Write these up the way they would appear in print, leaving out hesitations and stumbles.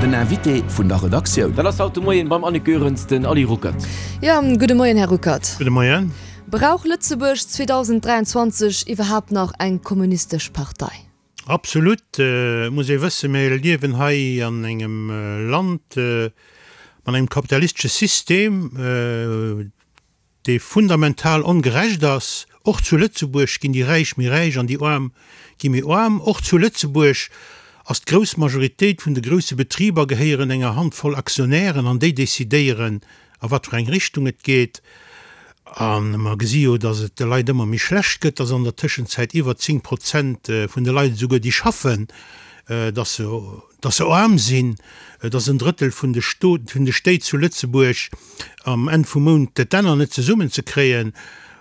Den Invité vun der Redaktioun. Dat ass haut de Moien beim Annick Goerens den Ali Ruckert. Jo, gudde Moien, Här Ruckert. Gudde Moien. Brauch Lëtzebuerg 2023 iwwerhaapt nach eng kommunistesch Partei? Absolut. Et muss ee wëssen, mir liewen hei an engem Land mat engem kapitalistesche System, dee fundamental ongerecht ass. Och zu Lëtzebuerg ginn déi Räich méi räich an déi Aarm gi méi aarm. Och zu Lëtzebuerg ass d'grouss Majoritéit vun de grousse Betriber gehéieren enger Handvoll Aktionären an déi decidéieren, a wat fir eng Richtung et geet. A mer gesi jo, datt et de Leit ëmmer méi schlecht gëtt, datt an der Tëschenzäit iwwer 10 Prozent vun de Leit esouguer déi schaffen, datt se dass se aarm sinn, dass en Drëttel vun de vun de Stéit zu Lëtzebuerg am Enn vum Mount d'Enner net zesummen ze kréien.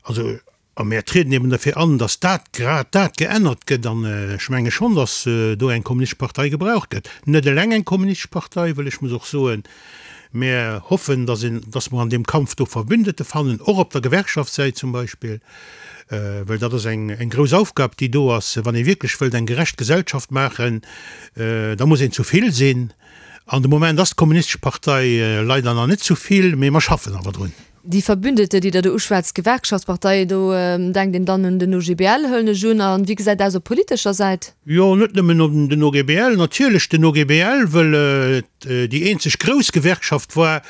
Also, a mär trieden eben derfir an, dass dat, grad dat geännert gëtt. An ech menge schonn, dass do eng kommunistesch Partei gebraucht gëtt. Net eleng eng kommunistesch Partei, wëll ech muss och soen, mär hoffen, dass een, dass mer an deem Kampf do Verbündete fannen, och op der Gewerkschaftssäit zum Beispill. Well dat ass eng grouss Aufgab, déi do ass. Wann ee wierklech wëllt eng gerecht Gesellschaft maachen, da muss een zu vill sinn. An de Moment ass d'Kommunistesch Partei leider nach net zu vill, mee mer schaffen awer drun. Déi Verbündete, déi Der do uschwätzt, d'Gewerkschaftsparteien, do denkt een dann un den OGBL, huelen ech un. A wéi gesäit et aus op politescher Säit? Jo, net nëmmen un den OGBL. Natierlech den OGBL, wëll et déi eenzeg grouss Gewerkschaft war,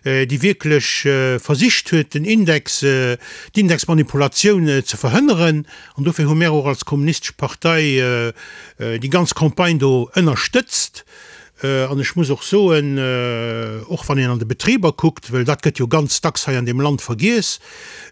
déi wierklech versicht huet, den Index, d'Indexmanipulatioun ze verhënneren. An dofir hu mär och als Kommunistesch Partei déi ganz Campagne do ënnerstëtzt. An ech muss och soen, och wann een an de Betriber kuckt, well dat gëtt jo ganz dacks hei an deem Land vergiess,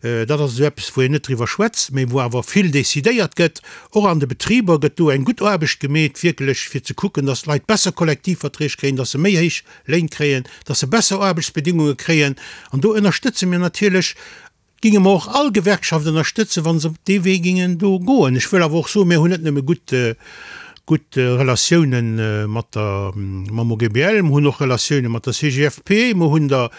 dat ass esou eppes, wou een net driwwer schwätzt, mä wou awer vill decidéiert gëtt, och an de Betriber gëtt do eng gutt Aarbecht gemeet, wierklech fir ze kucken, dass d'Leit besser Kollektivverträg kréien, dass se méi héich Léin kréien, dass se besser Aarbechtsbedingunge kréien. An do ënnerstëtze mir natierlech, ginge mer och all Gewerkschaft ënnerstëtzen, wa se op dee Wee gingen do goen. Ech wëll awer och soen, mir hunn net nëmme gutt, gutt Relatiounen mat der, mam OGBL, mer hunn och Relatiounen mat der CGFP, mer hunn der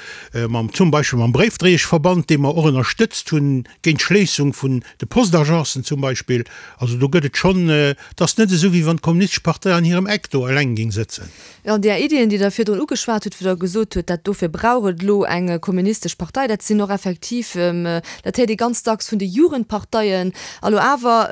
mam, zum Beispill mam Bréifdréieschverband, dee mer och ënnerstëtzt hunn géint d'Schléissung vun de Postagencen zum Beispill. Also do gëtt et schonn, et ass net esou, wéi wann d'Kommunistesch Partei an hirem Eck do eleng géing sëtzen. Jo, an där Iddien, déi Der virdrun ugeschwat hutt, wou Der gesot hutt, dat dofir brauch et elo eng kommunistesch Partei, dat sinn och effektiv, dat héiert ee ganz dacks vun de Jugendparteien. A lo awer,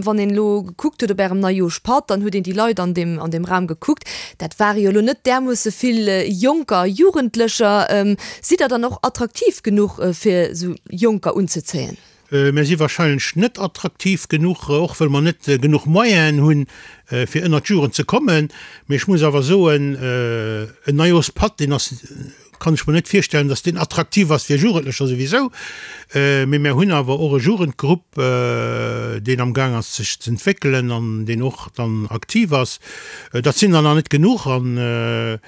wann een elo gekuckt huet op Ärem Neijoerschpatt, dann huet een déi Leit an deem, an deem Raum gekuckt, dat ware jo elo net därmoosse vill Jonker a Jugendlecher. Sidd Der dann och attraktiv genuch, fir esou Jonker unzezéien? Mir si wahrscheinlech net attraktiv genuch, och wëll mer net genuch Moyenen hunn, fir ënnert d'Jugend ze kommen. Mee ech muss awer soen, en Neijoerschpatt, deen ass, kann ech mer net virstellen, datt deen attraktiv ass fir Jugendlecher souwisou. Mee mir hunn awer och e Jugendgrupp, deen am Gaang ass sech z'entwéckelen an deen och dann aktiv ass. Dat sinn der nach net genuch an.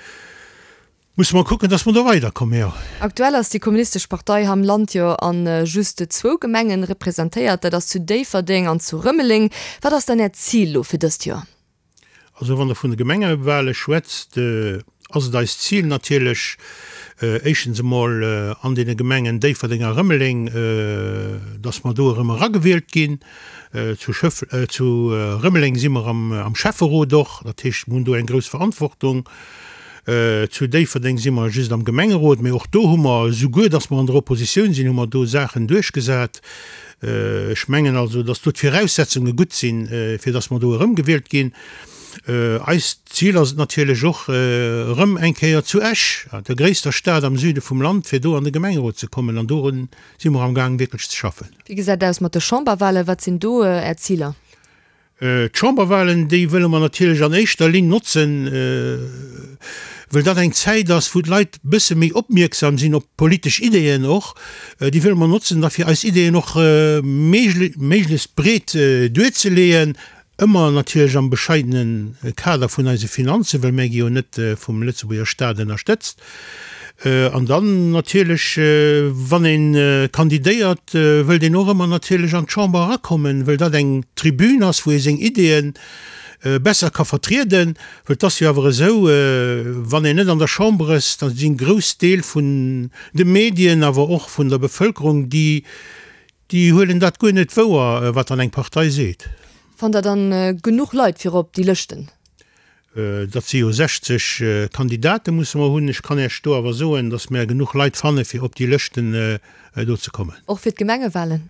Musse mer kucken, dass mer do weiderkommen, jo. Aktuell ass déi Kommunistesch Partei ham Land jo a just zwou Gemengen representéiert, dat ass zu Déifferdeng an zu Rëmeleng. Wat ass dann Äert Zil lo fir dëst Joer? Also wann Der vun de Gemengewale schwätzt, ass et eist Zil natierlech, éischtens emol an deene Gemengen Déifferdeng a Rëmeleng, dass mer do erëm eragewielt ginn. Zu Schëff, zu Rëmeleng si mer am Schäfferot och, dat heescht, mer hunn do eng grouss Verantwortung. Zu Déifferdeng si mer just am Gemengerot, mee och do hu mer, souguer datt mer an der Oppositioun sinn, hu mer do Saachen duerchgesat. Ech mengen also, datt do d'Viraussetzunge gutt sinn, fir datt mer do erëmgewielt ginn. Eist Zil ass et natierlech och, erëm eng Kéier zu Esch, der gréisster Stad am Süde vum Land, fir do an de Gemengerot ze kommen. An dorun si mer amgaang wierklech ze schaffen. Wéi gesäit et aus mat de Chamberwahlen? Wat sinn do Är Ziler? D'Chamberwahlen, déi wëlle mer natierlech an éischter Linn notzen, wëll dat eng Zäit ass, wou d'Leit e bësse méi opmierksam sinn op politesch Ideeën och. Déi wëlle mer notzen da fir eis Ideeën och méiglechst breet duerzeleeën, ëmmer natierlech am bescheidene Kader vun eise Finanzen, well mär gi jo net vum Lëtzebuerger Staat ënnerstëtzt. An dann natierlech, wann ee kandidéiert, wëllt een och ëmmer natierlech an d'Chamber erakommen, wëll dat eng Tribün ass, wou ee seng Ideeë besser ka vertrieden. Well et ass jo awer esou, wann een net an der Chamber ass, da sinn grouss Deel vun de Medien, awer och vun der Bevëlkerung, déi, déi huelen dat guer net wouer, wat dann eng Partei seet. Fannt Der dann genuch Leit fir op déi Lëschten? Dat si jo 60 Kandidate musse mer hunn. Ech kann Iech do awer soen, datt mer genuch Leit fanne fir op déi Lëschten do ze kommen. Och fir d'Gemengewahlen?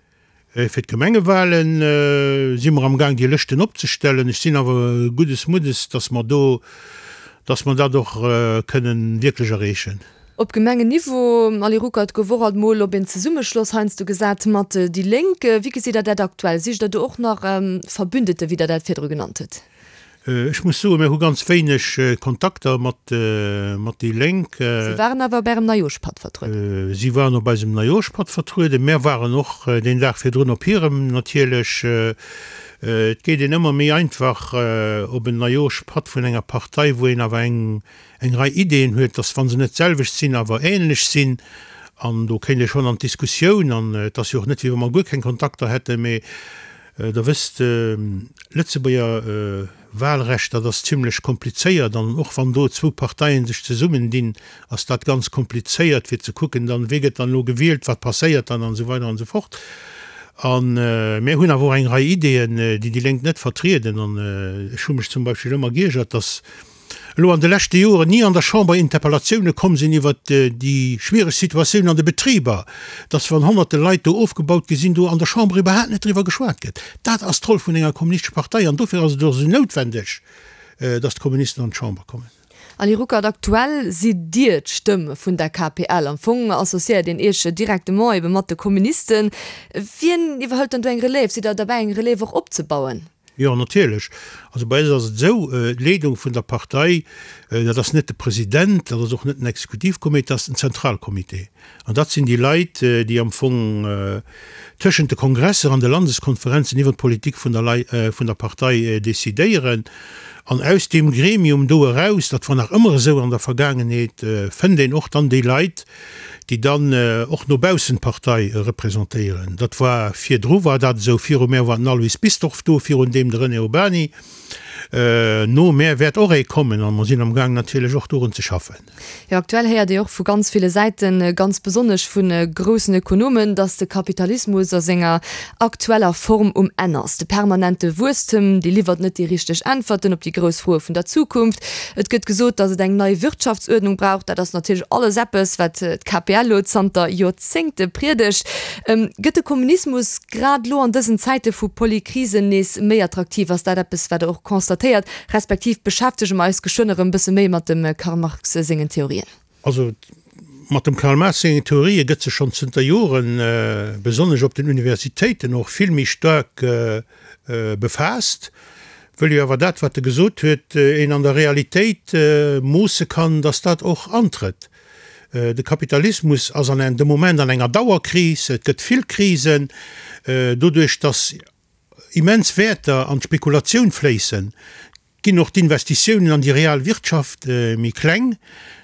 Fir d'Gemengewahlen si mer am Gaang déi Lëschten opzestellen. Ech sinn awer guddes Muddes, datt mer do, datt mer dat och kënnen wierklech erreechen. Op Gemengenniveau, Ally Ruckert, gouf och alt mol op een Zesummeschloss heiansdo gesat mat déi Lénk. Wéi gesitt Der dat aktuell? Sicht Der do och nach Verbündete, wéi Der dat virdru genannt hutt? Ech muss soen, mir hu ganz wéineg Kontakter mat déi Lénk. Si waren awer op Ärem Neijooschpatt vertrueden. Si waren op eisem Neijooschpatt vertrueden. Mär waren och deen Dag virdrun op hirem natierlech. Et geet een ëmmer méi einfach op en Neijooschpatt vun enger Partei, wou een awer eng eng Rei Ideeën huet, dass, wa se net d'selwecht sinn, awer ähnlech sinn. An do kéint ee schonn an d'Diskussioun. An et ass jo och net, wéi wa mer guer keng Kontakter hätten. Mee Der wësst, Lëtzebuerger Wahlrecht, dat ass zimlech komplizéiert. An och wann do zwou Parteien sech zesummendinn, ass dat ganz komplizéiert, fir ze kucken dann, wie gëtt dann elo gewielt, wat passéiert dann an esou weider an esou fort. A mir hunn awer och eng Rei Ideeën, déi déi Lénk net vertrieden. An ech hu mech zum Beispill ëmmer giergert, dass elo an de leschte Joren ni an der Chamber Interpellatioune komm sinn iwwert déi schwiereg Situatioun an de Betriber, dass wann honnerte Leit do ofgebaut gi sinn, do an der Chamber iwwerhaapt net driwwer geschwat gëtt. Dat ass d'Roll vun enger kommunistescher Partei an dofir ass et och esou noutwendeg, dass d'Kommunisten an d'Chamber kommen. Anny Ruckert, Aktuell sidd Dir d'Stëmm vun der KPL. Am Fong associéiert een Iech directement ebe mat de Kommunisten. Wien iwwerhëlt dann do eng Relève? Sidd Der derbäi eng Relève och opzebauen? Jo, natierlech. Also bei eis ass et esou, d'Leedung vun der Partei, dat ass net de President, dat ass och net den Exekutivcomité, dat ass den Zentralcomité. An dat sinn déi Leit, déi am Fong tëschent de Kongresser an de Landeskonferenzen iwwer d'Politik vun der Lei, vun der Partei decidéieren. An aus deem Gremium do eraus, dat war nach ëmmer esou an der Vergaangenheet, fënnt een och dann déi Leit, déi dann och no baussen d'Partei representéieren. Dat war virdru war dat esou, viru mär war den Alois Bisdorff do, virun deem de René Urbany. No mär wäert och ee kommen a mer sinn am Gaang natierlech och dorun ze schaffen. Jo, aktuell héiert ee och vu ganz ville Säiten, ganz besonnesch vu groussen Ökonomen, datt de Kapitalismus a senger aktueller Form um Enn ass. De permanente Wuesstem, dee liwwert net déi richteg Äntwerten op déi grouss Froe vun der Zukunft. Et gëtt gesot, datt et eng nei Wirtschaftsuerdnung brauch. Dat ass natierlech alles eppes, wat d'KPL elo zanter Joerzéngte priedegt. Gëtt de Kommunismus grad elo an dësen Zäite vu Polykrisen nees méi attraktiv? Ass dat eppes, wat Der och constatéiert, respektiv beschäftege mer eis geschwënn erëm e bësse méi mat dem Karl Marx sengen Theorien? Also mat dem Karl Marx sengen Theorië gëtt sech schonn zënter Joren, besonnesch op den Universitéiten och, vill méi staark befaasst, wëll jo awer dat, wat e gesot huet, een an der Realitéit moosse kann, datt dat och antrëtt. De Kapitalismus ass an de Moment an enger Dauerkris, et gëtt vill Krisen, doduerch datt immens Wäerter an d'Spekulatioun fléissen, ginn och d'Investitiounen an déi real Wirtschaft méi kleng.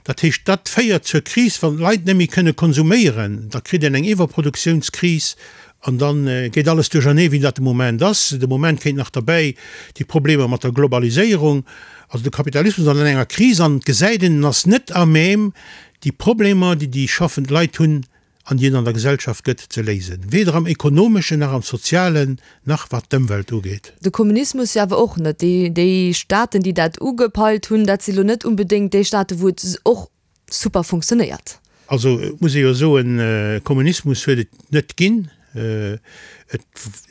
Dat heescht, dat féiert zur Kris, wann d'Leit net méi kënne konsuméieren, da kritt een eng Iwwerproduktiounskris an da geet alles duerchernee wéi dat de Moment ass. De Moment kéint nach derbäi déi Problemer mat der Globaliséierung. Also de Kapitalismus ass an enger Kris an et gesäit een, en ass net à même déi Problemer, déi déi schaffend Leit hunn, an déi et an der Gesellschaft gëtt, ze léisen, weder am ekonomeschen nach am sozialen, nach wat d'Ëmwelt ugeet. De Kommunismus jo awer och net. Déi, déi Staaten, déi dat ugepeilt hunn, dat si lo net unbedéngt déi Staaten, wou et och super funktionéiert. Also et muss ee jo soen, Kommunismus huet et net ginn. Et,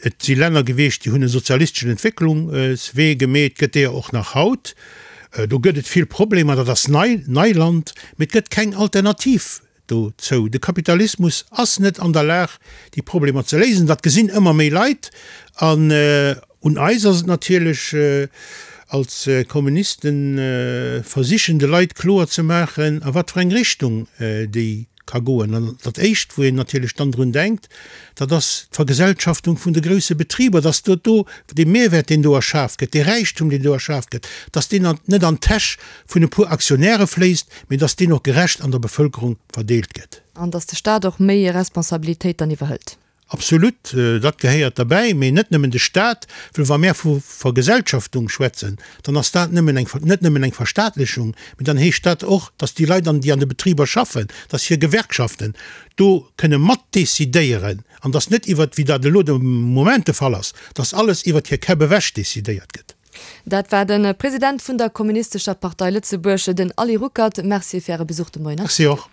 et si Länner gewiescht, déi hunn e sozialisteschen Entwécklungswee gemeet, gëtt deeër och nach haut. Do gëtt et vill Problemer, dat ass nei, Neiland, mee et gëtt keng Alternativ Dozou, De Kapitalismus ass net an der Lag, déi Problemer ze léisen. Dat gesinn ëmmer méi Leit. An un eis ass et natierlech als Kommunisten, versichen de Leit kloer ze maachen, a wat fir eng Richtung déi ka goen. An dat Éischt, wou een natierlech dann drun denkt, dat ass d'Vergesellschaftung vun de grousse Betriber, dass do do dee Mehrwert, deen do erschaf gëtt, dee Räichtum, deen do erschaf gëtt, dass deen net an d'Täsch vun e puer Aktionäre fléisst, mee dass deen och gerecht an der Bevëlkerung verdeelt gëtt. An dass de Staat och méi Responsabilitéit dann iwwerhëlt. Absolut, dat gehéiert derbäi, mee net nëmmen de Staat, well wa mär vu Vergesellschaftung schwätzen, dann ass dat nëmmen eng, net nëmmen eng Verstaatlechung, mee dann heescht dat och, dass déi Leit, an déi an de Betriber schaffen, dass hir Gewerkschaften do kënne matdecidéieren an dass net iwwert, wéi dat elo de Moment de Fall ass, dass alles iwwert hir Käpp ewech decidéiert gëtt. Dat war de President vun der Kommunistescher Partei Lëtzebuerg, den Ali Ruckert. Merci fir Äre Besuch de Moien am Merci och.